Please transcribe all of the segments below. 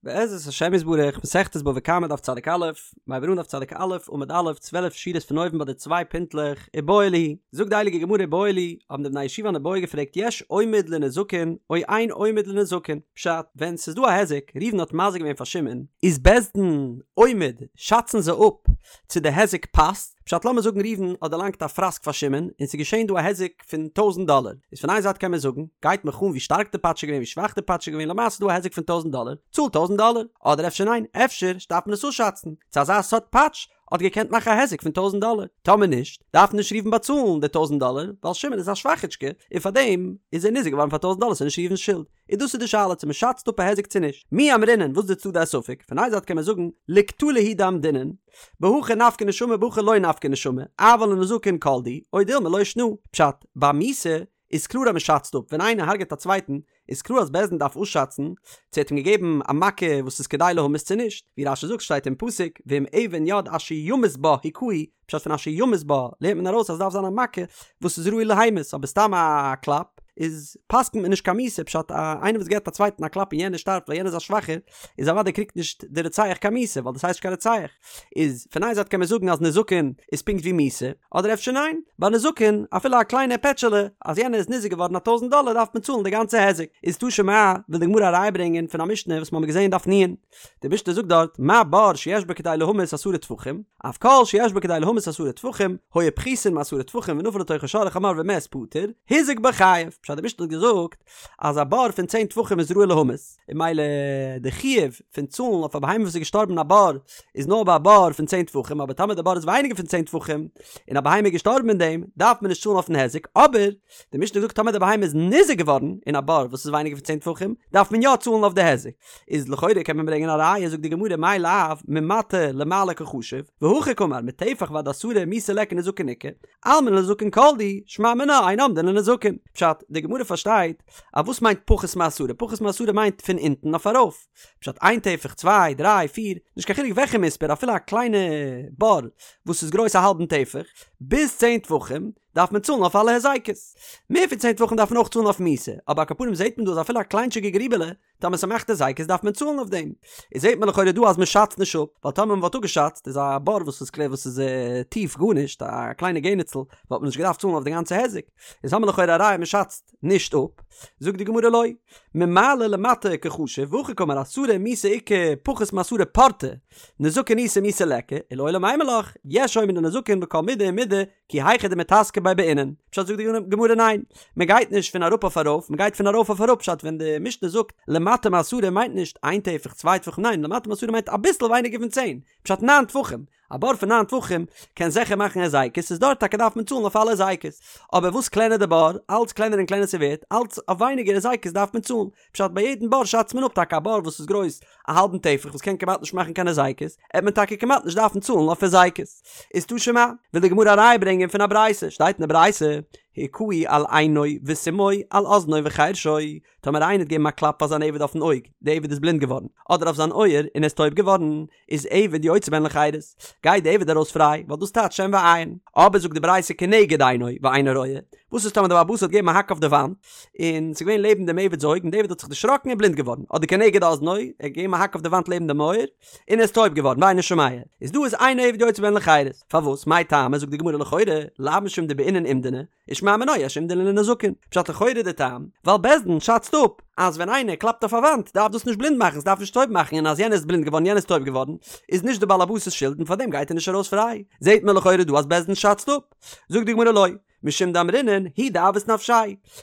בעזרת השם יתברך, מסכת בבא קמא דף צדיק א', מיר הייבן אן דף צדיק א', עמוד א', 12 שורות פון אויבן ביי די צוויי פינטלעך, איבעיא להו, זאגט די הייליגע גמרא איבעיא להו, האבן די בני הישיבה אן איבעיא געפרעגט יש אומד לנזקין או אין אומד לנזקין, פשט, ווען ס'איז דא א היזק, ראובן האט מזיק געווען פאר שמעון, איז בית דין אומד, שאצן זיי אפ צו די היזק פאסט, פשט לאמיר זאגן ראובן האט דערלאנגט א פראסק פאר שמעון און ס'איז געשען דא א היזק פון טויזנט דאלער, איז פון איין זייט קען מען זאגן, גייט מיך אן ווי שטארק די פאטש איז געווען ווי שוואך די פאטש איז געווען למעשה איז דא א היזק פון טויזנט דאלער, צאל טויזנט דאלער, אדער אפשר ניין, אפשר דארף מען עס אפשאצן, צו אזא סארט פאטש האט געקענט מאכן א היזק פון טויזנט דאלער, טאמער נישט, דארף נישט ראובן באצאלן די טויזנט דאלער, ווייל שמעון איז א שוואכיטשקע, און פארדעם איז ער ניזוק געווארן פאר טויזנט דאלער ס'איז נישט ראובן'ס שולד. איז דאס איז די שאלה צו מ'שאצט אפ א היזק צו נישט. מי אמרינן וואס איז די צדדי הספק? פון איין זייט קען מען זאגן לקטלא הוא דאמדינן, בהכי נפקא נשמה בהכי לא נפקא נשמה, אבל לנזקין כל דהו, או דילמא לא שנא. פשט, ביי מיתה איז קלאר אז מ'שאצט אפ, ווען איינער הרג'עט א צווייטן איז קלאר אז בית דין דארף אפשאצן צו ער האט אים געגעבן א מכה וואס איז כדי להמית צו נישט, ווי רש"י זאגט שטייט אין פסוק ואם אבן יד אשר ימות בה הכהו, פשט פון אשר ימות בה לערנט מען ארויס אז עס דארף זיין א מכה וואס איז ראוי להמית אבער סתם א קלאפ איז פסק'נט מען נישט קיין מיתה פשט א איינער וואס געבט א צווייטן א קלאפ און יענער שטארבט ווייל יענער איז א שוואכער איז אוודאי קריגט נישט די רוצח קיין מיתה ווייל דאס הייסט נישט קיין רוצח איז פון איין זייט קען מען זאגן אז נזקין איז פונקט ווי מיתה אדער אפשר ניין ביי נזקין אפילו א קליינע פעטשעלע אז יענער איז ניזוק געווארן א טויזנט דאלער דארף מען צאלן די גאנצע היזק איז תא שמע וויל די גמרא א ראיה ברענגען פון א משנה וואס מ'האמיר געזען דף נ'. די משנה זאגט דארט, מה בור שיש בו כדי להמית עשרה טפחים, אף כל שיש בו כדי להמית עשרה טפחים, היו פחותין מעשרה טפחים ונפל לתוכו שור או חמור ומת פטור, הוזק בו חייב. פשט די משנה האט געזאגט אז א בור פון צען טפחים איז ראוי להמית, און ממילא די חיוב פון צאלן אויף א בהמה וואס איז געשטארבן אין א בור איז נאר ביי א בור פון צען טפחים, אבער טאמער די בור איז ווייניגער פון צען טפחים און א בהמה איז געשטארבן אין דעם, דארף מען נישט צאלן אויפן היזק, אבער די משנה זאגט טאמער די בהמה איז ניזוק געווארן אין א בור וואס איז ווייניגער פון צען טפחים, דארף מען יא צאלן אויף די היזק. איז לכאורה קען מען ברענגען א ראיה זאגט די גמרא מאי לאו ממטה למעלה קחשיב, והכי קאמר מטפח ועד עשרה מיתה ליכא נזקין איכא, אלמא לנזקין כל דהו, שמע מינה אין אומדין לנזקין. פשט, די גמרא פארשטייט אז וואס מיינט פחות מעשרה? פחות מעשרה מיינט פון אונטן אויף ארויף. פשט, איין טפח, צוויי, דריי, פיר, נישט קיין חילוק וועלכע מספר אפילו א קליינע בור וואס איז גרויס א האלבן טפח, ביז צען טפחים, דארף מען צאלן אויף אלע היזקות. מער פון צען טפחים דארף מען אויך צאלן אויף מיתה, אבער על כל פנים זעט מען דא אז אפילו א קליינטשיגע גריבעלע, טאמער ס'מאכט היזקות דארף מען צאלן אויף דעם. איז זעט מען לכאורה דא אז מ'שאצט נישט אפ, ווייל טאמער מ'וואלט אפגעשאצט איז א בור וואס איז קלער וואס איז טיף גארנישט, א קליינע געניצל, וואלט מען נישט געדארפט צאלן אויף די גאנצע היזק. איז האמיר לכאורה א ראיה מ'שאצט נישט אפ. זאגט די גמרא לא. ממעלה למטה קחשיב, והכי קאמר עשרה מיתה איכא פחות מעשרה פורתא, נזקין איתא מיתה ליכא, ולעולם אימא לך, יש אומד לנזקין בכל מידי ומידי, כי היכי דמיתזקא ביה בעינן, פשט זאגט די גמרא ניין, מען גייט נישט פון אראפ אויף ארויף, מען גייט פון ארויף אויף אראפ, פשט ווען די משנה זאגט למטה מעשרה מיינט נישט איין טפח צוויי טפחים ניין למטה מעשרה מיינט אביסל ווייניגער פון צען, פשט ניין טפחים, א בור פון ניין טפחים קען זיכער מאכן היזקות איז דארט טאקע דארף מען צאלן אויף אלע היזקות, אבער וואס קלענער די בור אלץ קלענער און קלענער ס'ווערט אלץ אויף ווייניגער היזקות דארף מען צאלן, פשט ביי יעדן בור שאצט מען אפ טאקע א בור וואס איז גרויס א האלבן טפח וואס קען כמעט נישט מאכן קיין היזקות, עט מען טאקע כמעט נישט דארפן צאלן אויף היזקות. איז תא שמע, וויל די גמרא א ראיה ברענגען פון א ברייתא, שטייט אין די ברייתא, הכהו על עינו וסימאו על אזנו וחרשו, טאמער איינער האט געגעבן א קלאפ פאר זיין עבד אויפן אויג, די עבד איז בלינד געווארן, אדער אויף זיין אויער און ער איז טויב געווארן, איז עבד יוצא בהן לחירות, גייט די עבד ארויס פריי, ווייל דאס טייטש שן ועין. אבער זאגט די ברייתא כנגד עינו ואינו רואה, וואס איז טאמער די בעל הבית האט געגעבן א האק אויף די וואנט, און ס'איז געווען לעבן דעם עבד'ס אויג, און די עבד האט זיך דערשראקן און בלינד געווארן, אדער כנגד אזנו, ער האט געגעבן א האק אויף די וואנט לעבן דעם אויער, און ער איז טויב געווארן, ואינו שומע, איז דא איז אין עבד יוצא בהן לחירות. פארוואס? מאי טעמא, זאגט די גמרא לכאורה, לאו משום דבעינן אומדנא, ושמע מינה יש אומדנא לנזקין, פשט לכאורה די טעם, ווייל בית דין שאצט אפ אז ווען איינער קלאפט אויף א וואנט דארף דאס נישט בלינד מאכן ס'דארף נישט טויב מאכן און אז יענער איז בלינד געווארן יענער איז טויב געווארן איז נישט די בעל הבית'ס שולד און פארדעם גייט ער נישט ארויס פריי, זעהט מען לכאורה דא אז בית דין שאצט אפ. זאגט די גמרא לא, משום דאמרינן הוא דאבעית נפשיה,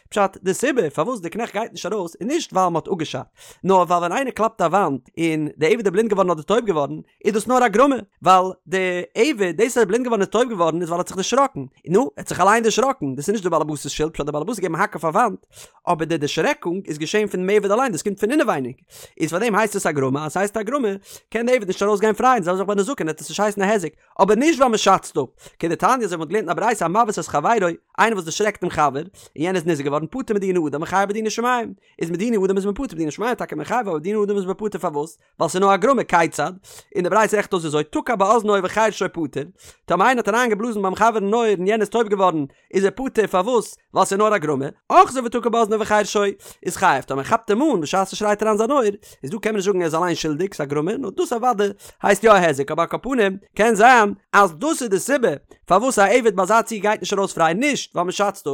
פשט די סיבה פארוואס די קנעכט גייט נישט ארויס איז נישט ווייל מ'האט אפגעשאצט, נאר ווייל ווען איינער קלאפט א וואנט און די עבד איז בלינד געווארן אדער טויב געווארן איז דאס נאר א גרמא, ווייל די עבד, דאס אז ער איז בלינד געווארן און טויב געווארן איז ווייל ער האט זיך דערשראקן, נו, ער האט זיך אליין דערשראקן, דאס איז נישט די באלעבאס'ס שולד, פשט די באלעבאס האט געגעבן א האק אויף א וואנט, אבער די דערשרעקונג איז געשען פונעם עבד אליין, דאס קומט פון אינעווייניג, איז פארדעם הייסט עס א גרמא, אז ס'הייסט א גרמא, קען די עבד נישט ארויס גיין פריי, און זעלבע זאך ביי נזקין, וועט עס נישט הייסן א היזק, אבער נישט ווייל מען שאצט אפ, כדתניא אזוי ווי מען האט געלערנט אין א ברייתא המבעית את חברו. חברו, איינער וואס דערשרעקט דעם חבר, און יענער איז ניזוק געווארן, פטור מדיני אדם וחייב בדיני שמים, איז מדיני אדם איז מען פטור, מדיני שמים טאקע מען חייב אבער מדיני אדם איז מען פטור פארוואס? ווייל ס'איז נאר א גרמא, כיצד? און די ברייתא רעכנט אויס אזוי, תקע באזנו וחרשו פטור, טאמער איינער האט אריין געבלאזן ביים חבר אין אויער און יענער איז טויב געווארן, איז ער פטור, פארוואס? ווייל ס'איז נאר א גרמא, אחזו ותקע באזנו וחרשו איז חייב, טאמער כאפט אים אן בשעת ער שרייט אריין זיין אויער, איז דא קען מען נישט זאגן ער איז אליין שולדיג, ס'איז א גרמא, נאר דאס אוודאי הייסט יא א היזק, אבער על כל פנים קען זיין אז דאס איז די סיבה פארוואס א עבד ביי אזא ציור גייט נישט ארויס פריי, נישט ווייל מ'שאצט אפ.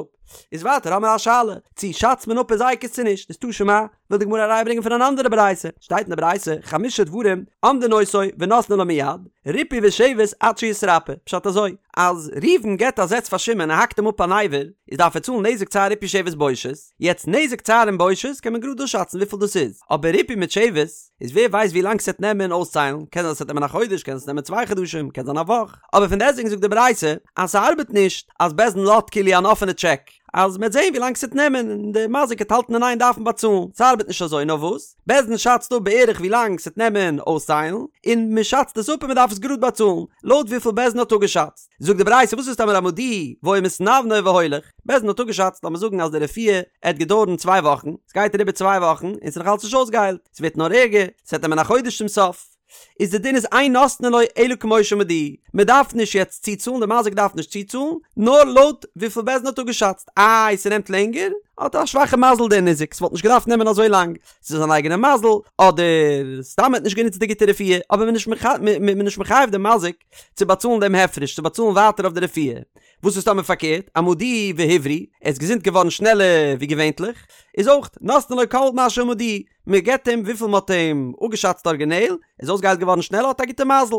איז ווייטער האמער א שאלה, צו שאצט מען אפ היזקות צו נישט, איז תא שמע, וויל די גמרא א ראיה ברענגען פון אן אנדערע ברייתא, שטייט אין די ברייתא, חמשה דברים אומדין אותו ונותנין לו מיד, ריפוי ושבת עד שיתרפא, פשט אזוי, אז ראובן געבט א זעץ פאר שמעון און האקט אים אפ אן אבר, איז דארף ער צאלן נזק צער ריפוי שבת בושת, יעצט נזק צער און בושת קען מען גראד אפשאצן וויפיל דאס איז, אבער ריפוי מיט שבת, איז ווער ווייסט ווי לאנג ס'עט נעמען אויסציילן, קען זיין ס'עט נעמען א חודש, קען עס נעמען צוויי חדשים, קען זיין א וואך, אבער פון דעסטוועגן זאגט די ברייתא אז ס'ארבעט נישט אז בית דין לאזט כאילו אן אפענע טשעק, אז מ'עט זעהן ווי לאנג ס'עט נעמען און די מזיק עט האלטן אין איין דארפן באצאלן, ס'ארבעט נישט אזוי נאר וואס? בית דין שאצט אפ בערך ווי לאנג ס'עט נעמען אויסציילן, און מ'שאצט עס אפ און מ'דארף עס גראד באצאלן, לויט וויפיל בית דין האט אפגעשאצט. זאגט די ברייתא וואס איז טאמער אמדוהו והיה מתנוונה והולך, בית דין האט אפגעשאצט לאמיר זאגן אז די רפואה עט געדויערן צוויי וואכן, ס'גייט אריבער צוויי וואכן און ס'איז נאך אלץ נישט אויסגעהיילט, ס'ווערט נאר ערגער, ס'עט נעמען א חודש צום סוף. איז די דין איז אין נותנין לו אלא כמו שאמדוהו, מען דארף נישט יעצט צוצאלן, די מזיק דארף נישט צוצאלן, נאר לויט וויפיל בית דין האט אפגעשאצט, איי ס'נעמט לענגער, האט א שוואכע מזל דער ניזק, ס'וואלט נישט געדארפט נעמען אזוי לאנג, ס'איז זיין אייגענע מזל, אדער סתם מ'האט נישט גענוצט די גוטע רפואה, אבער מ'איז נישט מחייב דעם מזיק צו באצאלן דעם הפרש, צו באצאלן ווייטער אויף די רפואה. וואס איז טאמער פארקערט, אמדוהו והבריא, ער איז געזונט געווארן שנעלער ווי געווענטליך, איז אויך נותנין לו כל מה שאמדוהו, מען געבט אים וויפיל מען האט אים אפגעשאצט ארגינעל, ער איז אויסגעהיילט געווארן שנעלער האט א גוטע מזל.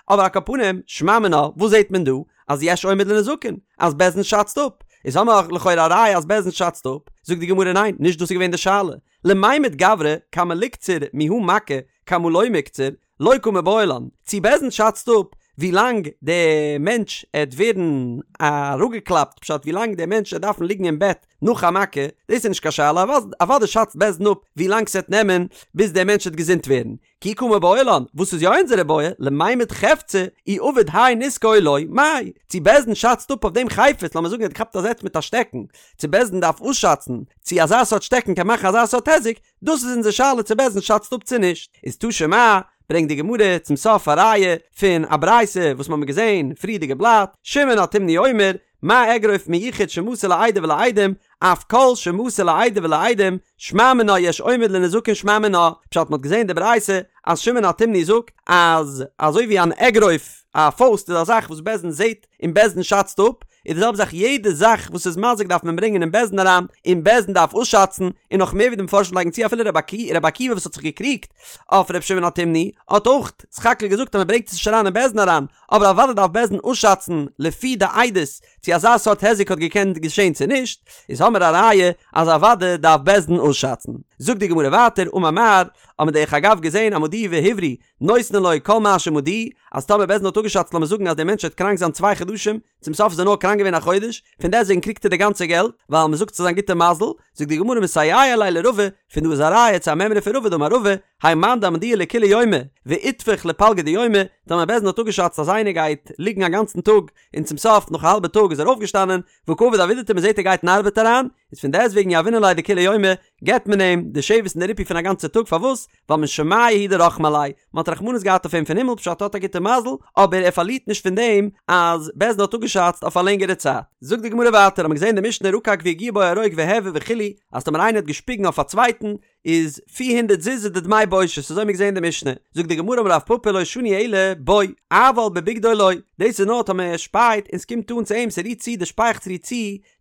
אבער על כל פנים, שמע מינה, וואס זעט מען דא? אז יש אומד לנזקין, אז בית דין שאצט אפ. איז האמער לכאורה א ראיה אז בית דין שאצט אפ. זאגט די גמרא ניין, נישט דאס איז געווען די שאלה. למימד גברא כמה ליקצר מיהא מכה כמה לא מיקצר, לא קא מיבעיא לן, צי בית דין שאצט אפ ווי לאנג די מענטש עט ווערן אראפגעקלאפט, פשט ווי לאנג די מענטש עט דארפן ליגן אין בעט נאך א מכה, דאס איז נישט קיין שאלה, אוודאי שאצט בית דין אפ ווי לאנג ס'עט נעמען ביז די מענטש עט געזונט ווערן, כי קא מיבעיא לן, וואס איז יא אונזערע בעיא, למימד חפצא, אי עביד האי נזקא או לא, מאי, צי בית דין שאצט אפ אויף דעם חפץ, לאמיר זאגן ער האט געכאפט א זעץ מיט א שטעקן, צו בית דין דארף אויסשאצן צו אזא סארט שטעקן קען מאכן אזא סארט היזק, דאס איז אונזער שאלה צו בית דין שאצט אפ צו נישט. איז תא שמע, ברענגט די גמרא צום סוף א ראיה פון א ברייתא וואס מ'האמיר געזען פריערדיגע בלאט, שמעון התימני אומר, מה אגרוף מיוחד שמסר לעדה ולעדים, אף כל שמסר לעדה ולעדים, שמע מינה יש אומד לנזקין שמע מינה, פשט מ'האט געזען די ברייתא אז שמעון התימני זאגט אז אזוי ווי אן אגרוף, א פויסט איז א זאך וואס בית דין זעט און בית דין שאצט אפ, איז די זעלבע זאך יעדע זאך וואס איז מזיק דארף מען ברענגען אין בית דין אריין, און בית דין דארף אויסשאצן, און נאך מער ווי די מפרשים לייגן צו אפילו רבי עקיבא וואס האט זיך געקריגט אויף רבי שמעון התימני האט אויך סך הכל געזאגט אז מען ברענגט עס נישט אריין אין בית דין אריין, אבער אוודאי דארף בית דין אויסשאצן לפי די עדות צו אזא סארט היזק האט געקענט געשען צו נישט, איז האמער א ראיה אז אוודאי דארף בית דין אויסשאצן. זאגט די גמרא ווייטער, אמר מר, האט מען דרך אגב געזען אמדוהו והבריא, נותנין לו כל מה שאמדוהו, אז טאמער בית דין האט אפגעשאצט לאמיר זאגן אז דער מענטש וועט קראנק זיין צוויי חדשים, צום סוף איז ער נאר קראנק געווען א חודש, פון דעסטוועגן קריגט ער די גאנצע געלט, ווייל מען זאגט ס'איז זיין גוטע מזל, זאגט די גמרא מסייע ליה לרבא, פון דא איז א ראיה צו א מימרא פון רבא דאמר רבא, האי מאן דאמדוהו לכולי יומא, ואיתפח לפלגא דיומא, טאמער בית דין האט אפגעשאצט אז איינער גייט ליגן א גאנצן טאג, און צום סוף נאך א האלבע טאג איז ער אויפגעשטאנען, וקא עביד עבידתיה מען זעט ער גייט אין ארבעט אריין, איז פון דעסטוועגן יהבינן ליה דכולי יומא, געבט מען אים די שבת און די ריפוי פון א גאנצע טאג, פארוואס? ווייל משמיא הוא דרחמי עליה, מען האט רחמנות געהאט אויף אים פון הימל פשט האט א גוטע מזל, אבער ער פארלירט נישט פון דעם אז בית דין האט אפגעשאצט אויף א לענגערע צייט. זאגט די גמרא ווייטער, האט מען געזען די משנה רקק והגיע בו הרוק והעביר וכו', אז טאמער איינער האט געשפיגן אויף א צווייטן, איז פיר הונדערט זוז איז די דמי בושת, אזוי האט מען געזען די משנה. זאגט די גמרא אמר רב פפא לא שנו אלא בו, אבל בבגדו לא, דאס איז נאר טאמער ער שפייט און ס'קומט אן צו אים, ס'רירט צו, די שפייעכץ רירט צו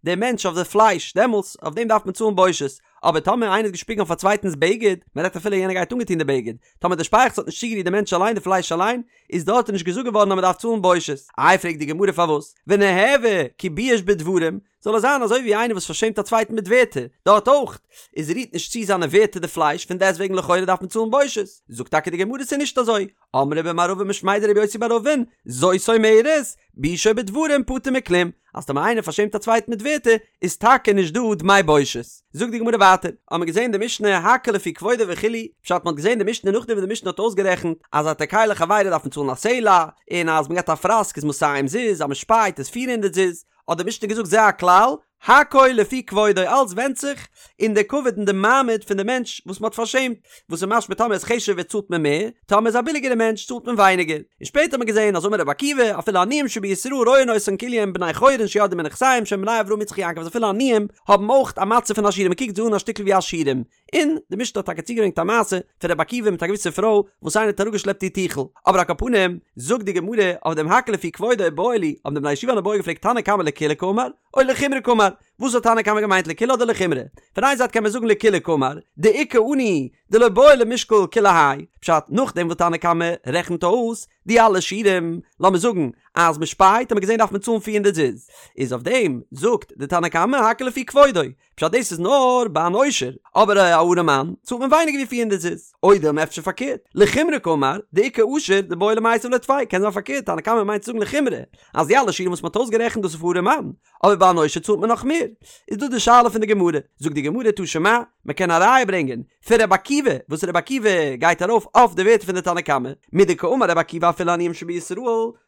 דער מענטש אויף די פלייש, דעמאלטס אויף דעם דארף מען צאלן בושת, אבער טאמער איינער האט געשפיגן אויף א צווייטנס בגד, מען רעדט אפילו יענער גייט אנגעטון די בגד, טאמער די שפייעכץ האט נישט צוגערירט די מענטש אליין די פלייש אליין, איז דארט נישט געזאגט געווארן אז מען דארף צאלן בושת. איי פרעגט די גמרא פארוואס, וניהוה כי בייש בדברים, זאל עס זיין אזוי ווי איינער וואס פארשעמט א צווייטן מיט ווערטער, דארט אויך איז רירט נישט צו זיינע ווערטער די פלייש, פון דעסטוועגן לכאורה דארף מען צאלן בושת, זאגט טאקע די גמרא ס'איז נישט אזוי, אמרי במערבא משמיה דרבי יוסי בר אבין, זאת אומרת, ביישו בדברים פטור מכלום, אז טאמער איינער פארשעמט א צווייטן מיט ווערטער, איז טאקע נישט דא דמי בושת. זאגט די גמרא ווייטער, האט מען געזען די משנה הכל לפי כבודו וכו', פשט מ'האט געזען די משנה נאכדעם וואס די משנה האט אויסגערעכנט אז התוקע לחבירו דארף מען צאלן א סלע, און אז מ'געט א פראסק איז מאתים זוז, אז מ'שפייט איז פיר הונדערט זוז, האט די משנה געזאגט זה הכלל, הכל לפי כבודו אלץ ווענדט זיך אין די כבוד און די מעמד פון די מענטש וואס מ'האט פארשעמט, וואס איז משמע טאמער איז חשוב'ער צאלט מען מער, טאמער איז א ביליגערע מענטש צאלט מען ווייניגער. און שפעטער האט מען געזען אז אמר רבי עקיבא אפילו עניים שבישראל רואין אותן כאילו הם בני חורין שירדו מנכסיהם שהם בני אברהם יצחק יעקב אז אפילו עניים האבן אויך א מצב פון עשירים מ'קוקט זיי אן א שטיקל ווי עשירים, און די משנה האט טאקע צוגעברענגט א מעשה פון רבי עקיבא מיט א געוויסע פרוי וואס איינער האט אראפגעשלעפט איר טיכל, אבער על כל פנים זאגט די גמרא אויף דעם הכל לפי כבודו איבעיא להו, האבן די בני ישיבה אן איבעיא געפרעגט תנא קמא לקולא קאמר או לחומרא קאמר, וואס האט תנא קמא געמיינט לקולא אדער לחומרא? פון איין זייט קען מען זאגן לקולא קאמר, דאיכא עני דלא בעי למשקל כולי האי, פשט נאכדעם וואס תנא קמא רעכנט אויס די אלע שיעורים, לאמיר זאגן אז מען שפייט האט מען געזען דארף מען צאלן פיר הונדערט זוז, איז אויף דעם זאגט די תנא קמא הכל לפי כבודו, פשט דאס איז נאר ביי אן עושר, אבער א ארעמאן צאלט מען ווייניגער ווי פיר הונדערט זוז. או דילמא אפשר פארקערט, לחומרא קאמר, דאיכא עשיר דבעי למיתב ליה טפי, קען זיין פארקערט, תנא קמא מיינט צו זאגן לחומרא, אז די אלע שיעורים וואס מען האט אויסגערעכנט דאס איז פאר ארעמאן, אבער ביי אן עושר צאלט מען נאך מער. איז דא די שאלה פון די גמרא, זאגט די גמרא תא שמע, מען קען א ראיה ברענגען פון רבי עקיבא, וואס רבי עקיבא גייט ארויף אויף די ווערטער פון די תנא קמא, מדקאמר רבי עקיבא אפילו עניים שבישראל,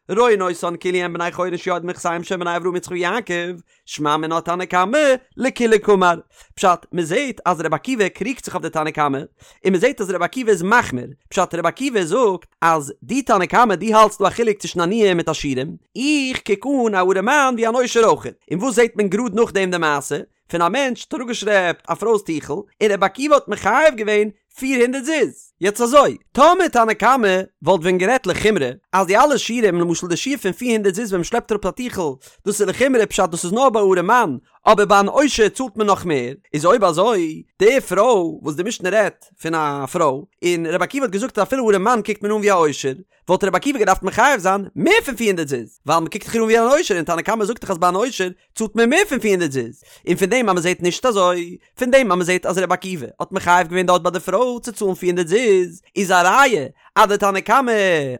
רואין אותן כאילו הם בני חורין שירדו מנכסיהם שהם בני אברהם יצחק ויעקב, שמע מינה תנא קמא לקולא קאמר. פשט, מען זעט אז רבי עקיבא קריגט זיך אויף די תנא קמא, און מען זעט אז רבי עקיבא איז מחמיר, פשט רבי עקיבא זאגט אז דו תנא קמא דו האלטסט דא א חילוק צווישן עניים מיט עשירים, איך קוק אן א ארעמאן ווי אן עושר אויכעט, און וואס זעט מען גראד נאכדעם די מעשה פון א מענטש האט אראפגעשלעפט א פרוי'ס טיכל, און רבי עקיבא האט מחייב געווען פיר הונדערט זוז. יעצט אזוי, טאמער תנא קמא וואלט ווען גערעדט לחומרא, אז די אלע שיעורים, למשל די שיעור פון פיר הונדערט זוז ווען מ'שלעפט אראפ א טיכל, דאס איז לחומרא פשט דאס איז נאר ביי ארעמאן, אבער ביי אן עושר צאלט מען נאך מער, איז אויב אזוי, די פרוי וואס די משנה רעדט פון א פרוי, און רבי עקיבא האט געזאגט אז אפילו ארעמאן קוקט מען אן ווי א עושר, וואלט רבי עקיבא געדארפט מחייב זיין מער פון פיר הונדערט זוז, ווייל מ'קוקט דאך איר אן ווי אן עושר און תנא קמא זאגט דאך אז ביי אן עושר צאלט מען מער פון פיר הונדערט זוז, און פון דעם אז מ'זעט נישט אזוי, פון דעם אז מ'זעט אז רבי עקיבא האט מחייב געווען דארט ביי די פרוי צו צאלן פיר הונדערט זוז, איז א ראיה אז די תנא קמא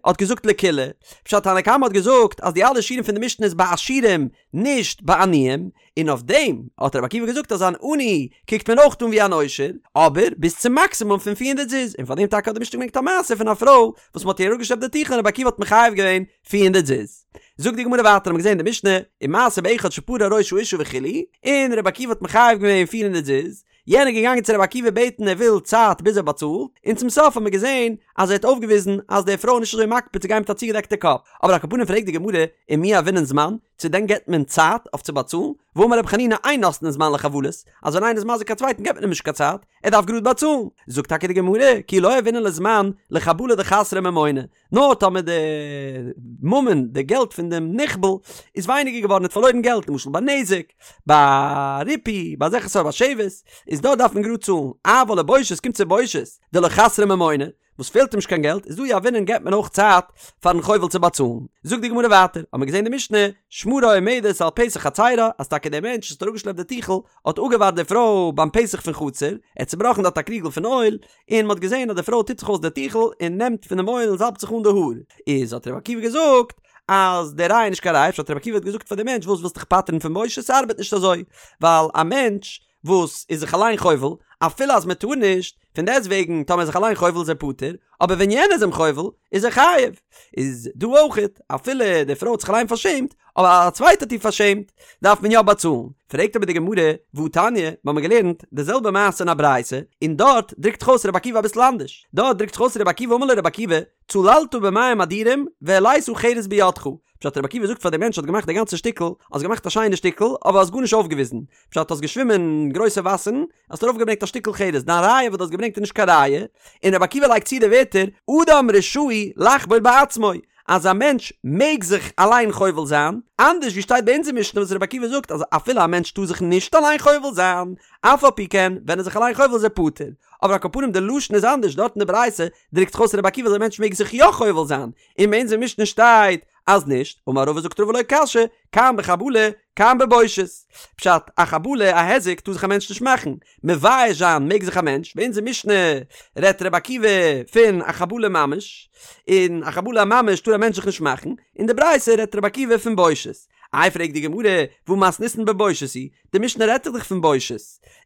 האט געזאגט לקולא, פשט תנא קמא האט געזאגט אז די אלע שיעורים פון די משנה איז ביי עשירים נישט ביי עניים, און אויף דעם האט רבי עקיבא געזאגט אז אן עני קוקט מען אויך אן ווי אן עושר, אבער ביז צום מאקסימום פון פיר הונדערט זוז, און פאר דעם טאקע האט די משנה געברענגט א מעשה פון א פרוי וואס מ'האט איר אראפגעשלעפט די טיכל און רבי עקיבא האט מחייב געווען פיר הונדערט זוז. זאגט די גמרא ווייטער האט מען געזען אין די משנה, ומעשה באחד שפרע ראש האשה וכו', און רבי עקיבא האט מחייב געווען פיר הונדערט זוז, יענער איז געגאנגען צו רבי עקיבא בעטן ער וויל צייט ביז ער באצאלט, און צום סוף האט מען געזען אז ער האט אויפגעוויזן אז די פרוי איז נישט אזוי מקפיד צו גיין מיט א צוגעדעקטע קאפ, אבער על כל פנים פרעגט די גמרא, ומי יהבינן זמן, צו דען געבט מען צייט אויף צו באצאלן? והאמר רבי חנינא אין נותנין זמן לחבלות, אז ווען איינער איז מזיק א צווייטן געבט מען אים נישט קיין צייט, ער דארף גראד באצאלן. זאגט טאקע די גמרא, כי לא יהבינן ליה זמן לחבלה דחסרה ממונא, נאר טאמער די ממון, די געלט פון דעם נחבל, איז ווייניגער געווארן, ער האט פארלוירן געלט, למשל ביי נזק, ביי ריפוי, ביי אזעלכע סארט ביי שבת, איז דארט דארף מען גראד צאלן, אבל לבושת, קומט צו בושת, דלא חסרה ממונא, וואס פעלט אים נישט קיין געלט, איז דא יהבינן געבט מען אויך צייט פארן חובל צו באצאלן. זאגט די גמרא ווייטער, האט מען געזען די משנה, שמרה עומדת על פתח חצרה, אז טאקע דער מענטש וואס האט אראפגעשלעפט די טיכל, האט אפגעווארט די פרוי ביים פתח פון חצר, ער האט צובראכן דארט א קריגל פון אויל, און מען האט געזען אז די פרוי טוט זיך אויס די טיכל און נעמט פון דעם אויל און זאלבט זיך אן די האר, איז האט רבי עקיבא געזאגט אז די ראיה איז נישט קיין ראיה, פשט רבי עקיבא האט געזאגט פאר די מענטש וואס ווילסט דיך פטר'ן פון בושת, ס'ארבעט נישט אזוי, ווייל א מענטש וואס איז זיך אליין חובל, אפילו אז מען טאר נישט, פון דעסט וועגן טאמער איז זיך אליין חובל איז ער פטור, אבער ווען יענער איז אים חובל איז ער חייב, איז דא אויכעט אפילו די פרוי האט זיך אליין פארשעמט, אבער א צווייטער האט איר פארשעמט, דארף מען יא באצאלן. פרעגט אבער די גמרא, והתניא, מיר האבן געלערנט די זעלבע מעשה אין א ברייתא, און דארט דרוקט זיך אויס רבי עקיבא אביסל אנדערש, דארט דרוקט זיך אויס רבי עקיבא אמר לו רבי עקיבא, צללת במים אדירים והעלית חרס בידך, פשט רבי עקיבא זאגט פאר די מענטש האט געמאכט די גאנצע שטיקל, האסט געמאכט א שיינע שטיקל, אבער האסט גארנישט אויפגעוויזן, פשט האסט געשווימען אין גרויסע וואסערן, האסט ארויפגעברענגט א שטיקל חרס, דיין ראיה וואס דו האסט געברענגט איז נישט קיין ראיה, און רבי עקיבא לייגט צו די ווערטער, אדם רשאי לחבול בעצמו, אז א מענטש מעג זיך אליין חובל זיין, אנדערש ווי שטייט ביי אונזער משנה וואס רבי עקיבא זאגט אז אפילו א מענטש טאר זיך נישט אליין חובל זיין, אף על פי כן ווען ער איז זיך אליין חובל איז ער פטור. אבער על כל פנים די לשון איז אנדערש דארט אין די ברייתא דרוקט זיך אויס רבי עקיבא אז א מענטש מעג זיך יא חובל זיין, און ביי אונזער משנה שטייט אז נישט, אמר רבא זאגט רבא לא קשיא, כאן בחבלה, כאן בבושת. פשט, א חבלה, א היזק, טאר זיך א מענטש נישט מאכן. מבייש זיין מעג זיך א מענטש, ביי אונזער משנה רעדט רבי עקיבא פון א חבלה ממש, און א חבלה ממש טאר א מענטש זיך נישט מאכן, אין די ברייתא רעדט רבי עקיבא פון בושת. איי פרעגט די גמרא, והא מתניתין בבושת היא, די משנה רעדט דאך פון בושת,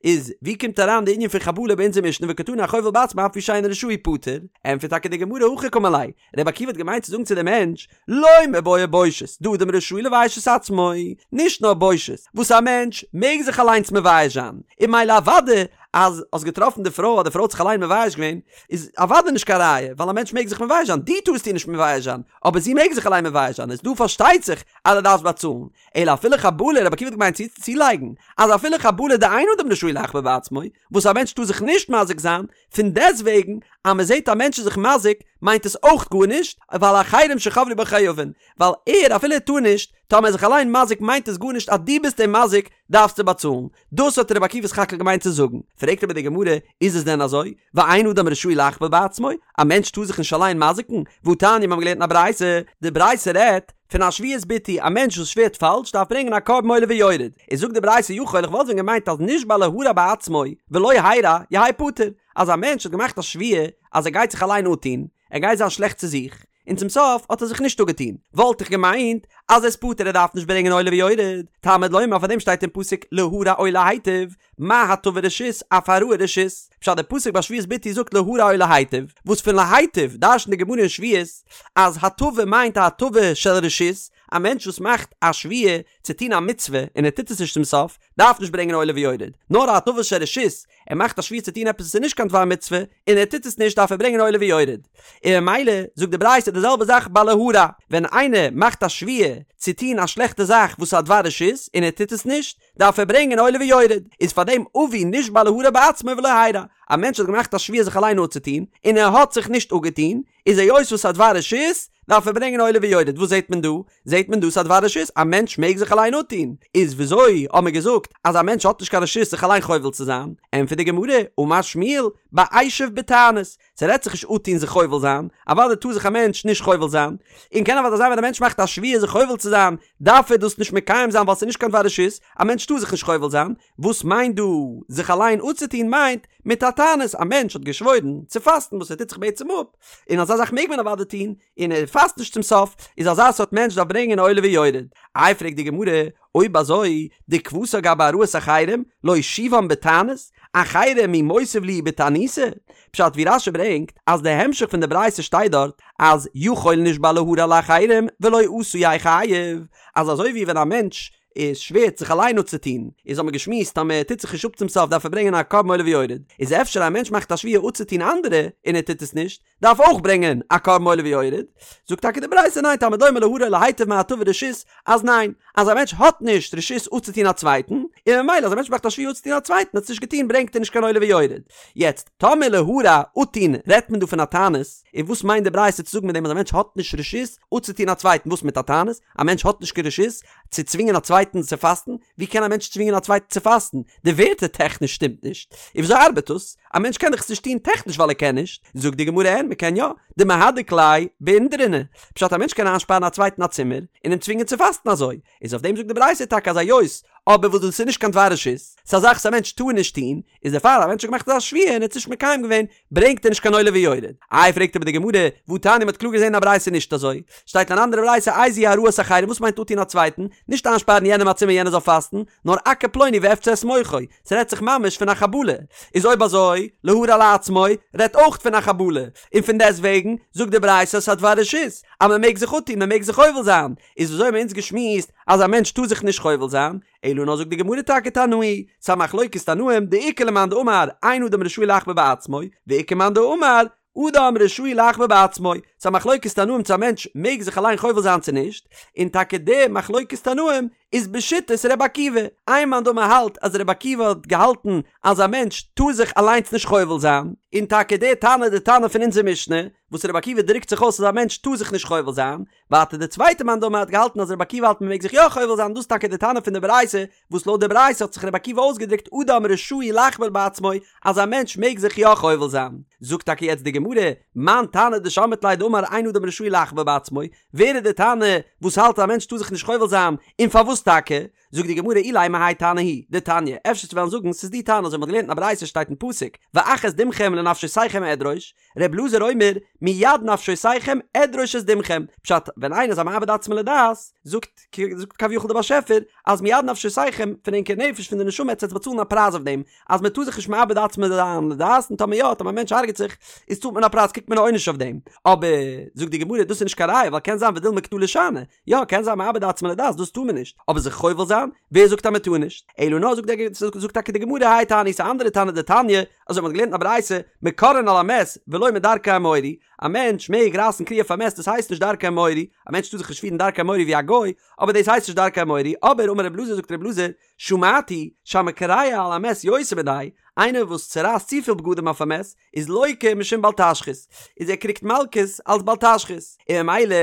איז ווי קומט אריין די ענין פון חבלה ביי אונזער משנה וקתני החובל בעצמו אף על פי שאינו רשאי פטור? ענטפערט טאקע די גמרא הכי קאמר ליה, רבי עקיבא האט געמיינט צו זאגן צו די מענטש, לא מיבעיא בושת, דאדם רשאי לבייש את עצמו, נישט נאר בושת, וואס א מענטש מעג זיך אליינס מבייש זיין, און ממילא אוודאי אז האסט געטראפן די פרוי אז די פרוי האט זיך אליין מבייש געווען, איז אוודאי נישט קיין ראיה, ווייל א מענטש מעג זיך מבייש זיין, דו טארסט איר נישט מבייש זיין, אבער זי מעג זיך אליין מבייש זיין, איז דא פארשטייט זיך אז דו דארפסט באצאלן, אלא אפילו חבלה, רבי עקיבא האט געמיינט צו צולייגן, אז אפילו חבלה דאין אדם רשאי לחבל בעצמו, וואס א מענטש טאר זיך נישט מזיק זיין, פון דעסטוועגן אז מען זעט א מענטש איז זיך מזיק, מיינט עס אויך גארנישט, ווייל אחרים שחבלו בו חייבין, ווייל ער אפילו ער טאר נישט, טאמער ער איז זיך אליין מזיק מיינט עס גארנישט אז דו ביסט אים מזיק דארפסטו באצאלן, דאס האט רבי עקיבא סך הכל געמיינט צו זאגן, פרעגט אבער די גמרא, איז עס דען אזוי? ואין אדם רשאי לחבל בעצמו, א מענטש טאר זיך נישט אליין מזיק'ן, והתניא מיר האבן געלערנט אין א ברייתא, די ברייתא רעדט פון א שבועת ביטוי, א מענטש וואס שווערט פאלש דארף ברענגען א קרבן עולה ויורד, איז זאגט די ברייתא יכול איך וואלט ווען געמיינט אז נשבע להרע בעצמו ולא הרע יהא פטור, אז א מענטש האט געמאכט א שבועה אז ער גייט זיך אליין אפטון, ער גייט זיין שלעכט צו זיך, און צום סוף האט ער זיך נישט אפגעטון, וואלט איך געמיינט אז ער איז פטור ער דארף נישט ברענגען עולה ויורד, תלמוד לומר פאר דעם שטייט אין פסוק להרע או להיטיב, מה הטבה רשות אף הרעה רשות, פשט די פסוק ביי שבועת ביטוי זאגט להרע או להיטיב, וואס פון להיטיב דרש'נט די גמרא אין שבועות אז הטבה מיינט א הטבה של רשות, א מענטש וואס מאכט א שבועה צו טון א מצוה און ער טוט עס נישט צום סוף, דארף נישט ברענגען עולה ויורד, נאר א הטבה של רשות, ער מאכט א שבועה צו טון עפעס וואס איז נישט קיין דבר מצוה, און ער טוט עס נישט דארף ער ברענגען עולה ויורד. און ממילא זאגט די ברייתא די זעלבע זאך ביי להרע, ווען איינער מאכט א שבועה צו טון א שלעכטע זאך וואס איז א דבר רשות און ער טוט עס נישט, דארף ער ברענגען עולה ויורד. איז פאר דעם אביא נשבע להרע בעצמו ולא הרע, א מענטש האט געמאכט א שבועה זיך אליין אפצוטון, און ער האט זיך נישט אפגעטון, איז היות וואס ס'איז א דבר רשות, דארף ער ברענגען עולה ויורד, וואס זעט מען דא? זעט מען דא ס'איז א דבר רשות, א מענטש מעג זיך אליין אפטון, איז וויאזוי האט מען געזאגט אז א מענטש האט נישט קיין רשות זיך אליין חובל צו זיין? ענטפערט די גמרא, אמר שמואל, באשב בתענית, ס'רעדט זיך נישט אפטון זיך חובל זיין, אוודאי טאר זיך א מענטש נישט חובל זיין, און קען אוודאי זיין ווען א מענטש מאכט א שבועה זיך חובל צו זיין, דארף ער דאס נישט מקיים זיין ווייל ס'איז נישט קיין דבר רשות, א מענטש טאר זיך נישט חובל זיין, וואס מיינט דא זיך אליין אפצוטון מיינט מיט א תענית, א מענטש האט געשוואוירן צו פאסטן וואס ער טוט זיך בעצם אפ, און אזא זאך מעג מען אוודאי טון, און ער פאסט נישט צום סוף, איז אזא סארט מענטש דארף ברענגען עולה ויורד. איי פרעגט די גמרא, אויב אזוי, דכוותה גבי הרעת אחרים, להושיבם בתענית, אחרים מי מותיב להו בתעניתא? פשט ווי רש"י ברענגט אז די המשך פון די ברייתא שטייט דארט אז יכול נשבע להרע לאחרים ולא עשה יהא חייב, אז אזוי ווי ווען א מענטש איז שווערט זיך אליין אפצוטון, איז האט מען געשמועסט אז מען טוט זיך נישט אפ צום סוף דארף ער ברענגען א קרבן עולה ויורד, איז אפשר א מענטש מאכט א שבועה אפצוטון אנדערע און ער טוט עס נישט, דארף אויך ברענגען א קרבן עולה ויורד, זאגט טאקע די ברייתא ניין תלמוד לומר להרע או להיטיב מה הטבה רשות, אז ניין, אז א מענטש האט נישט רשות אפצוטון א צווייטן, און ממילא אז א מענטש מאכט א שבועה אפצוטון א צווייטן האט עס נישט געטון ברענגט ער נישט קיין עולה ויורד. יעצט, טאמער להרע אפטון רעדט מען דא פון א תענית, און וואס מיינט די ברייתא צו זאגן מיט דעם אז א מענטש האט נישט רשות אפצוטון א צווייטן וואס מיט א תענית? א מענטש האט נישט קיין רשות צו צווינגען א צווייטן צו פאסטן? ווי קען א מענטש צווינגען א צווייטן צו פאסטן? די ווערטער טעכניש שטימט נישט. און וויאזוי ארבעט דאס? א מענטש קען דאך עס נישט טון טעכניש ווייל ער קען נישט. זאגט די גמרא אין, מ'קען יא. דמהדק ליה באינדרונא. פשט א מענטש קען איינשפארן א צווייטן א צימער, און אים צווינגען צו פאסטן אזוי. איז אויף דעם זאגט די ברייתא טאקע אז היות אבער וואס דאס איז נישט קיין דבר רשות, ס'איז א זאך וואס א מענטש טאר נישט טון, איז דערפאר א מענטש האט געמאכט אזא שבועה און ער האט עס נישט מקיים געווען, ברענגט ער נישט קיין עולה ויורד. איי פרעגט אבער די גמרא, והתניא מ'האט קלאר געזען אין א ברייתא נישט אזוי, שטייט אין אן אנדערע ברייתא איזוהי הרעת אחרים וואס מיינט אפטון א צווייטן, נישט איינשפארן יענעם א צימער יענער זאל פאסטן, נאר אכה פלוני ואפצע את מוחו, ס'רעדט זיך ממש פון א חבלה, איז אויב אזוי, להרע לעצמו, רעדט אויך פון א חבלה, און פון דעסט וועגן, זאגט די ברייתא ס'איז א דבר רשות, אז מ'מעג זיך אפטון, מ'מעג זיך חובל זיין, איז וויאזוי האבן אונז געשמועסט אז א מענטש טאר זיך נישט חובל זיין, אלא נאר זאגט די גמרא טאקע תנאי, ס'א מחלוקת תנאים, דאיכא למאן דאמר אין אדם רשאי לחבל בעצמו, ואיכא מאן דאמר אדם רשאי לחבל בעצמו, ס'א מחלוקת תנאים צו א מענטש מעג זיך אליין חובל זיין צו נישט, און טאקע די מחלוקת תנאים איז בשיטת ר' עקיבא, איין מאן דאמר האלט אז ר' עקיבא האט געהאלטן אז א מענטש טאר זיך אליינס נישט חובל זיין, און טאקע די תנא די תנא פון אונזער משנה, וואס ר' עקיבא דרוקט זיך אויס אז א מענטש טאר זיך נישט חובל זיין, ווייטער די צווייטע מאן דאמר האט געהאלטן אז רבי עקיבא האלט מען מעג זיך יא חובל זיין דאס איז טאקע די תנא פון די ברייתא וואס לויט די ברייתא האט זיך רבי עקיבא אויסגעדרוקט אדם רשאי לחבל בעצמו אז א מענטש מעג זיך יא חובל זיין. זאגט טאקע יעצט די גמרא, מאן תנא דשמעת ליה דאמר אין אדם רשאי לחבל בעצמו, ווער איז די תנא וואס האלט אז א מענטש טאר זיך נישט חובל זיין און פארוואס טאקע? זאגט די גמרא אילימא האי תנא הוא דתניא, אפשר צו וועלן זאגן ס'איז די תנא אזוי מ'האט געלערנט אין א ברייתא שטייט אין פסוק ואך את דמכם לנפשותיכם אדרוש, ר' אלעזר אומר מיד נפשותיכם אדרוש את דמכם, פשט ווען איינער איז א מאבד עצמו לדעת זאגט זאגט כביכול דער באשעפער אז מיד נפשותיכם פון ענקער נפש פון די נשמה עטס וועטס באצאלן א פרייז אויף דעם אז מען טאר זיך נישט מאבד עצמו זיין לדעת און טאמער יא טאמער א מענטש הרג'ט זיך איז צאלט מען א פרייז קריגט מען א עונש אויף דעם אבער זאגט די גמרא דאס איז נישט קיין ראיה ווייל קען זיין ודילמא קטלא שאני יא קען זיין מאבד עצמו לדעת דאס טאר מען נישט אבער זיך חובל זיין ווער זאגט אז מען טאר נישט אלא נאר זאגט זאגט טאקע די גמרא האי תנא ס'איז א אנדערע תנא דתניא אזוי מען האט געלערנט אין א ברייתא מקרעין על המת ולא מדרכי האמורי א מענטש מעג רייסן קריעה אויף א מת דאס הייסט נישט דרכי האמורי א מענטש טאר זיך נישט פירן דרכי האמורי ווי א גוי אבער דאס הייסט נישט דרכי האמורי אבער אמר רב אלעזר זאגט רב אלעזר שמעתי שהמקרע על המת יותר מדאי, איינער וואס צורייסט צופיל בגדים אויף א מת, איז לוקה משום בל תשחית, איז ער קריגט מלקות אלס בל תשחית, און ממילא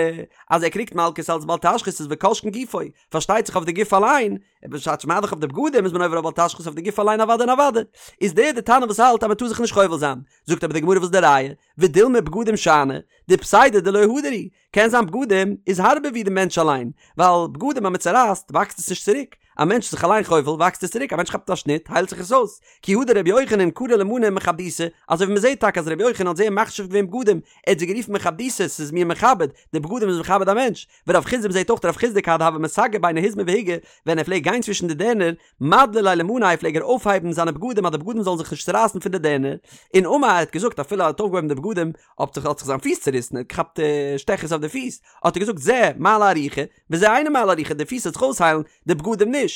אז ער קריגט מלקות אלס בל תשחית איז וכל שכן גופו, פארשטייט זיך אויף די גוף אליין, בשעת מה דאך אויף די בגדים איז מען עובר אויף בל תשחית אויף די גוף אליין אוודאי און אוודאי, איז דער די תנא וואס האלט אז מען טאר זיך נישט חובל זיין, זאגט אבער די גמרא וואס איז די ראיה, ודילמא בגדים שאני, דפסידא דלא הדר הוא, קען זיין בגדים איז הארבער ווי די מענטש אליין, ווייל בגדים אז מען צורייסט וואקסט עס נישט צוריק, א מענטש איז זיך אליין חובל וואקסט עס צוריק, א מענטש כאפט א שניט היילט זיך עס אויס, כי הא דרבי יוחנן קרי למאני מכבדיתא, אזוי ווי מען זעט טאקע אז רבי יוחנן האט זייער מחשיב געווען בגדים, ער האט זיי גערופן מכבדיתא, ס'איז מיר מכבד, די בגדים איז מכבד א מענטש, ורב חסדא מ'זעט אויך רב חסדא כד הוה מסגי ביני היזמי והיגי, ווען ער פלעגט גיין צווישן די דערנער, מדלי ליה למאניה פלעג ער אויפהייבן זיינע בגדים אז די בגדים זאלן זיך נישט צורייסן פון די דערנער, און אמר ער האט געזאגט אפילו ער האט אויפגעהויבן די בגדים האט זיך האט זיך זיין פיס צוריסן ער האט געכאפט שטעכעס אויף די פיס האט ער געזאגט זה מעלה ארוכה וזה אינו מעלה ארוכה די פיס וועט זיך אויסהיילן די בגדים נישט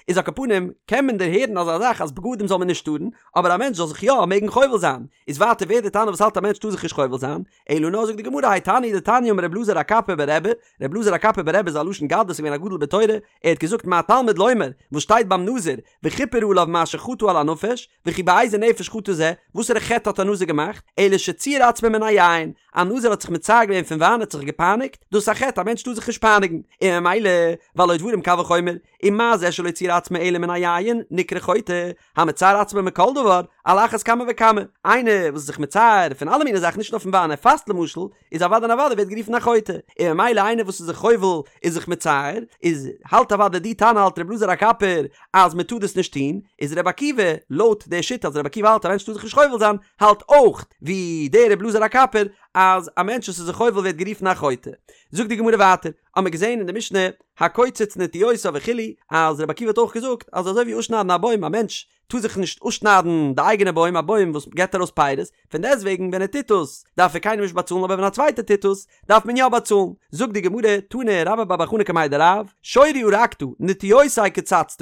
איז על כל פנים קען מען דערהערן אזא זאך אז בגדים זאל מען נישט טארן אבער א מענטש זאל זיך יא מעגן חובל זיין איז ווייטער ווער די תנא וואס האלט א מענטש טאר זיך נישט חובל זיין אלא נאר זאגט די גמרא האי תנא הוא דתניא אמר רב אלעזר הקפר ברבי רב אלעזר הקפר ברבי איז א לשון גדלות איז געווען א גדול בתורה ער האט געזאגט מה תלמוד לומר וואס שטייט ביים נזיר וכפר עליו מאשר חטא על הנפש וכי באיזה נפש חטא זה, וואסערע חטא האט א נזיר געמאכט, אלא שציער עצמו מן היין, א נזיר האט זיך מצער געווען פון וויין, ער האט זיך געפייניגט, דאס איז א חטא, א מענטש טאר זיך נישט פייניגן, און ממילא, והלא דברים קל וחומר, ומה זה שלא ציער עצמו אלא מן היין, נקרא חוטא, המצער עצמו מכל דבר, על אחת כמה וכמה, איינער וואס איז זיך מצער פון אלע מיני זאכן נישט נאר פון וויין, ער פאסט למשל, איז אוודאי און אוודאי ווערט גערופן א חוטא, און ממילא איינער וואס איז זיך חובל איז זיך מצער, איז האלט אוודאי די תנא האלט רבי אלעזר הקפר אז מען טאר דאס נישט טון, איז רבי עקיבא לויט די שיטה אז רבי עקיבא האלט א מענטש טאר זיך נישט חובל זיין, האלט אויך ווי דער רבי אלעזר הקפר אז א מענטש וואס איז זיך חובל ווערט גערופן א חוטא. זאגט די גמרא ווייטער, האמיר געזען אין די משנה הקוצץ נטיעותיו וכו' אז רבי עקיבא האט אויך געזאגט אז אזוי ווי אפשניידן א בוים א מענטש טאר זיך נישט אפשניידן די אייגענע בוים, א בוים וואס געבט ארויס פירות, פון דעסטוועגן ווען ער טוט עס דארף ער קיינעם נישט באצאלן אבער ווען א צווייטער טוט עס דארף מען יא באצאלן. זאגט די גמרא, תני רבה בר בר חנה קמיה דרב, שורי הרגת, נטיעותי קצצת,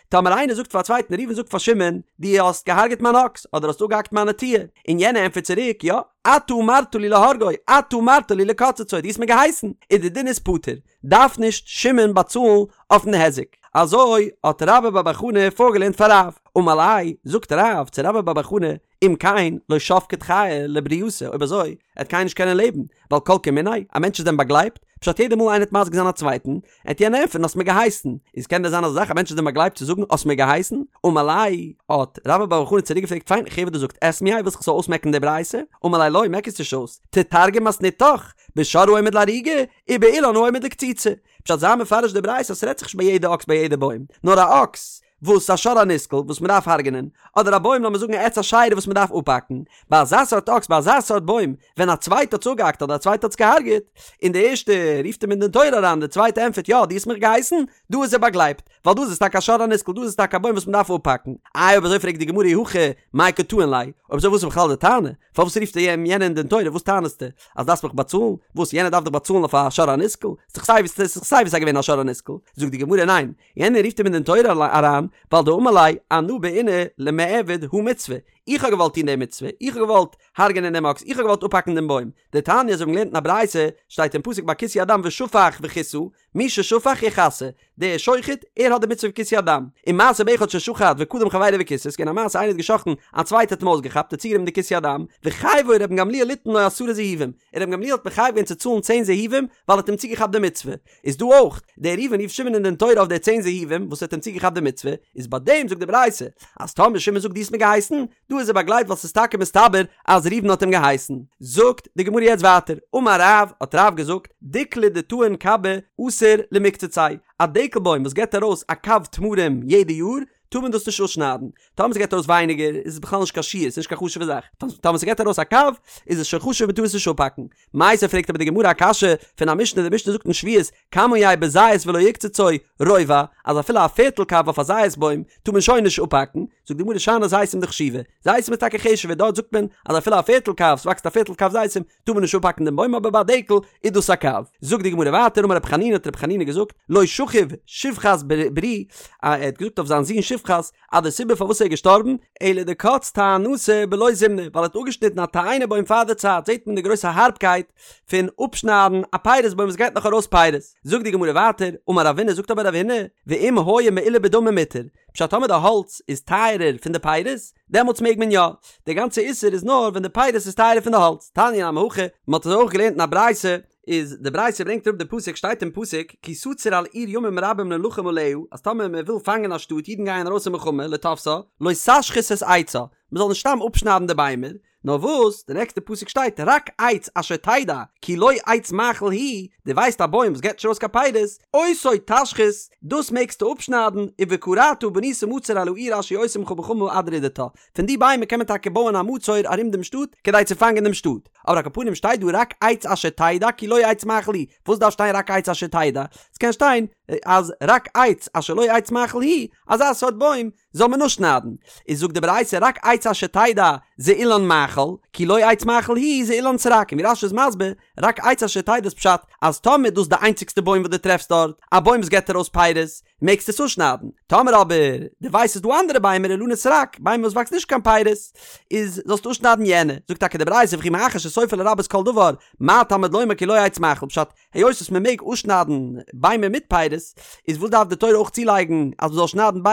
טאמער איינער זאגט פאר א צווייטן, ראובן זאגט פאר שמעון, דו האסט געהארגעט מיין אקס, אדער האסט אפגעהאקט מיין נטיעה, און יענער ענטפערט צוריק, יא, אתה אמרת לי להורגו, אתה אמרת לי לקצצו, דו האסט מיר געהייסן, איז די דין איז פטור, דארף נישט שמעון באצאלן אויפן היזק. אזוי האט רבה בר בר חנה פארגעלערנט פאר רב. אמר ליה, זאגט רב צו רבה בר בר חנה, אם כן, לא שבקת חיי לברייתא, אויב אזוי, עט קיינער נישט קענען לעבן, ווייל כל כמיניה, א מענטש איז דען באגלייבט? פשט יעדע מאל איינער עט מזיק זיין א צווייטן, עט יענער ענטפערן האסט מיר געהייסן, איז קען דען זיין אזא זאך א מענטש איז דען באגלייבט צו זאגן האסט מיר געהייסן? אמר ליה, האט רבה בר בר חנה צוריק געפרעגט פיין איך הער וואס דו זאגסט אסמייה ווילסט איך זאל אויסמעקן די ברייתא? אמר ליה לא מעק עס נישט אויס, תתרגם מתניתך, בשור העומד להריגה, ובאילן העומד לקציצה. פשט זיי מפרש די ברייתא אז ס'רעדט זיך נישט ביי יעדע אקס ביי יעדע בוים, נאר א אקס וואס א שור הנסקל וואס מ'דארף הרג'נען, אדער א בוים לאמיר זאגן א עץ אשירה וואס מ'דארף אפהאקן, ביי אזא סארט אקס ביי אזא סארט בוים ווען א צווייטע האט עס אפגעהאקט אדער א צווייטע האט עס געהארגעט, און די ערשטע רופט אים אין דין תורה אריין די צווייטע ענטפערט יא דו האסט מיך געהייסן, דא איז ער באגלייבט, ווייל דא איז עס טאקע א שור הנסקל דא איז עס טאקע א בוים וואס מ'דארף אפהאקן. איי אויב אזוי פרעגט די גמרא אי הכי מאי קא טעין ליה, אויב אזוי וואס איז בכלל די טענה? פארוואס רופט ער יענעם אין דין תורה וואס טענה'סטו? אז דארפסט מיך באצאלן? וואס יענער דארף דיך באצאלן אויף א שור הנסקל? ס'איז דאך סיי ווי ס'איז דאך סיי ווי סיי געווען א שור הנסקל. זאגט די גמרא ניין, יענער רופט אים אין דין תורה אריין ווייל דאמר ליה אנא בעינא למעבד הא מצוה, איך האב געוואלט טון די מצוה, איך האב געוואלט הרג'ענען דעם אקס, איך האב געוואלט אפהאקן דעם בוים. דתניא אזוי ווי מ'האט געלערנט אין א ברייתא, שטייט אין פסוק ביי כיסוי הדם ושפך וכסה, מי ששפך יכסה, דער שוחט, ער האט די מצוה פון כיסוי הדם. ומעשה באחד ששחט וקדם חברו וכיסה, ס'געווען א מעשה איינער האט געשחט'ן, א צווייטער האט אים אויסגעכאפט, האט צוגענומען די כיסוי הדם, וחייבו רבן גמליאל ליתן לו עשרה זהובים, און רבן גמליאל האט מחייב געווען צו צאלן צען זהובים, ווייל ער האט אים צוגעכאפט די מצוה. איז דא אויך, דער ראובן רופט שמעון אין דין תורה אויף די צען זהובים וואס ער האט אים צוגעכאפט די מצוה, איז ביי דעם זאגט די ברייתא, אז טאמער שמעון זאגט דו האסט מיר געהייסן, דא דא איז ער באגלייבט ווייל ס'איז טאקע מסתבר אז ראובן האט אים געהייסן. זאגט די גמרא יעצט ווייטער, אמר רב, האט רב געזאגט, דיקלא דטעין קבא אסור למקצציה, א דקל בוים וואס געבט ארויס א קב תמרים יעדע יאר, טאר מען דאס נישט אפשניידן, טאמער ס'געבט ארויס ווייניגער איז עס בכלל נישט קיין שיעור, ס'איז נישט קיין חשוב'ע זאך, טאמער ס'געבט ארויס א קב איז עס שוין חשוב מ'טאר עס נישט אפהאקן. מיתיבי פרעגט אבער די גמרא א קשיא פון א משנה, די משנה זאגט אין שביעית, כמה יהא בזית ולא יקצצו, רובע, אז אפילו א פערטל קב אויף א זית בוים טאר מען שוין נישט אפהאקן, זאגט די גמרא שאני זיתים דחשיבי, זיתים איז טאקע חשוב'ער דארט זאגט מען אז אפילו א פערטל קב, ס'וואקסט א פערטל קב זיתים, טאר מען נישט אפהאקן דעם בוים אבער ביי א דקל איז דאס א קב. זאגט די גמרא ווייטער אמר רבי חנינא האט רבי חנינא געזאגט לא שכיב שפחת ברי ער האט געזאגט אויף זיין זון שפחת אז די סיבה פארוואס ער איז געשטארבן אלא דקץ תאינתא בלא זימנה ווייל ער האט אפגעשניטן א תאנה בוים פאר די צייט זעט מען די גרויסע הארבקייט פון אפשניידן א פירות בוים וואס געט נאך ארויס פירות. זאגט די גמרא ווייטער אמר רב הונא זאגט אבער רב הונא ואם היה מעולה בדמים מותר פשט טאמער די האלץ איז טייערער פון די פירות דעמאלטס מעג מען יא. די גאנצע איסור איז נאר ווען די פירות איז טייערער פון די האלץ. תניא נמי הכי, מען האט עס אויך געלערנט אין א ברייתא, איז די ברייתא ברענגט אראפ די פסוק שטייט אין פסוק כי תצור אל עיר ימים רבים ללחם עליה אז טאמער מען וויל פאנגען א שטאט אידן גייען ארויס אין מלחמה לתפשה לא תשחית את עצה מען זאל נישט סתם אפשניידן די ביימער נאר וואס, די נעקסטע פסוק שטייט רק עץ אשר תדע כי לא עץ מאכל הוא, דו ווייסט א בוים וואס געבט נישט ארויס קיין פירות, אותו תשחית, דאס מעגסטו אפשניידן, ובכרתה ובנית מצור על העיר אשר היא עושה עמך מלחמה עד רדתה, פון די ביימער קען מען טאקע בויען א מצור ארום דעם שטאט כדי צו פאנגען דעם שטאט, אבער על כל פנים שטייט דא רק עץ אשר תדע כי לא עץ מאכל הוא, וואס דארף שטיין רק עץ אשר תדע? עס קען שטיין אז רק עץ אשר לא עץ מאכל הוא, אזא סארט בוים זאל מען נאר שניידן, איז זאגט די ברייתא רק עץ אשר תדע זה אילן מאכל, כי לא עץ מאכל הוא זה אילן סרק, און ווי רש"י איז מסביר, רק עץ אשר תדע איז פשט אז טאמער איז דאס די איינציגסטע בוים וואס דו טרעפסט דארט, א בוים וואס געבט ארויס פירות, מעגסטו עס אפשניידן, טאמער אבער דו ווייסט ס'איז דא אנדערע ביימער אילני סרק, ביימער וואס וואקסן נישט קיין פירות, איז זאלסטו אפשניידן יענע, זאגט טאקע די ברייתא וכי מאחר שסופה לרבות כל דבר, מה תלמוד לומר כי לא עץ מאכל, פשט, היות וואס מען מעג אפשניידן ביימער מיט פירות, איז וואס דארף די תורה אויך צולייגן אז מען זאל שניידן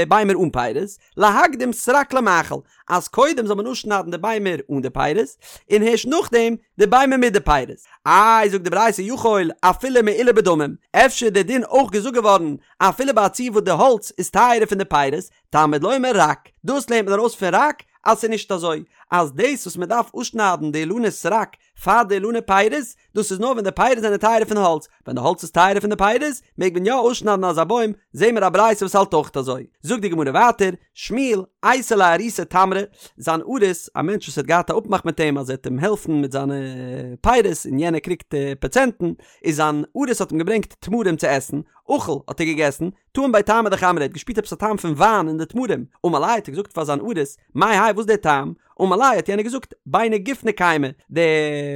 ביימער אן פירות? להקדים סרק למאכל, אז קודם זאל מען אפשניידן די ביימער אן די פירות, און הערשט נאכדעם די ביימער מיט די פירות. איי זאגט די ברייתא יכול אפילו מעולה בדמים, אפשר איז דער דין אויך געזאגט געווארן אפילו ביי א ציור וואס די האלץ איז טייערער פון די פירות, תלמוד לומר רק, דאס לערנט מען ארויס פון רק אז ס'איז נישט אזוי אז דאס וואס מען דארף אפשניידן די אילני סרק פאר די אילני פירות, דאס איז נאר ווען די פירות זענען טייערער פון האלץ, ווען די האלץ איז טייערער פון די פירות, מעג מען יא אויסשניידן אזא בוים, זעהן מיר א ברייתא וואס האלט אויך אזוי. זאגט די גמרא ווייטער, שמואל, אייתי ליה אריסיה תמרי, זיין אריס, א מענטש וואס האט געהאט א אפמאך מיט אים אז ער וועט אים העלפן מיט זיינע פירות און יענער קריגט פראצענטן, איז זיין אריס האט אים געברענגט תמרים צו עסן, אכל, האט ער געגעסן, טעים בהו טעמא דחמרא, ער האט געשפירט עפעס א טעם פון וויין אין די תמרים, אמר ליה האט ער געזאגט פאר זיין אריס, מאי האי וואס איז דער טעם? אמר ליה האט יענער געזאגט, ביני גופני קיימי, די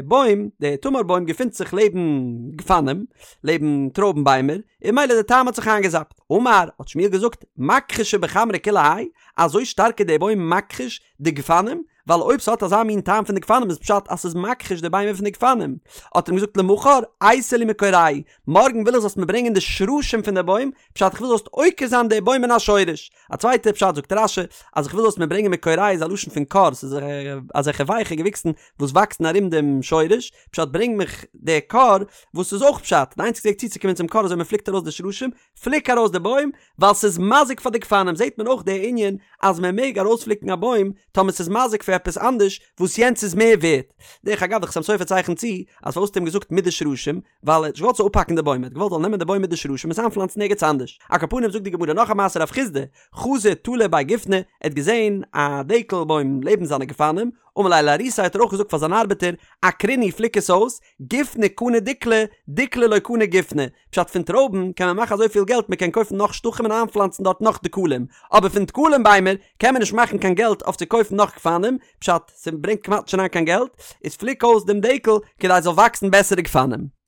בוים, די תמר בוים געפינט זיך לעבן גפנים, לעבן טרויבן ביימער, און ממילא די טעם האט זיך איינגעזאפט. אמר, האט שמואל געזאגט, מכחישא בחמרא כולי האי, אזוי שטארק איז דער בוים מכחיש די גפנים, ווייל אויב ס'האט אזא מין טעם פון די גפנים איז פשט אז ס'איז מכחיש די ביימער פון די גפנים. האט ער אים געזאגט למחר אייתי לי מכורייהו, מארגן וויל איך זאלסט מיר ברענגען די שרשים פון די בוים, פשט איך וויל זאלסט עוקר זיין די בוים מן השורש. א צווייטע פשט זאגט רש"י אז איך וויל זאלסט מיר ברענגען מכורייהו איז א לשון פון כור, ס'איז אזעלכע ווייכע געוויקסן וואס וואקסן ארום דעם שורש, פשט ברענג מיך די כור, וואס איז אויך פשט, די איינציגסטע וועג צוצוקומען צום כור איז אויב מ'פליקט ארויס די שרשים, פליק ארויס די בוים, ווייל ס'איז מזיק פאר די גפנים, זעט מען אויך די ענין אז מען מעג ארויספליקן א בוים טאמער ס'איז מזיק פאר עפעס אנדערש וואס יענץ איז מער ווערט. דרך אגב די חתם סופר צייכנט צו אז פארוואס האט ער אים געזאגט מיט די שרשים, ווייל ער האט נישט געוואלט ס'זאל אפהאקן די בוים, ער האט געוואלט זאל נעמען די בוים מיט די שרשים און עס איינפלאנצן ערגעץ אנדערש. על כל פנים זאגט די גמרא נאך א מעשה רב חסדא חזא תלא בי גופני, ער האט געזען א דקל בוים לעבן זיינע גפנים, אמר ליה לאריסיה האט ער אויך געזאגט פאר זיין ארבעטער, עקרינהו פליק עס אויס, גופני קני דיקלי, דיקלי לא קני גופני, פשט פון טרויבן קען מען מאכן אזויפיל געלט מען קען קויפן נאך שטחים און איינפלאנצן דארט נאך דקלים, אבער פון דקלים ביימער קען מען נישט מאכן קיין געלט אויף צו קויפן נאך גפנים, פשט, ס'ברענגט כמעט נישט אריין קיין געלט, איז פליק אויס דעם דקל כדי ס'זאל וואקסן בעסערע גפנים.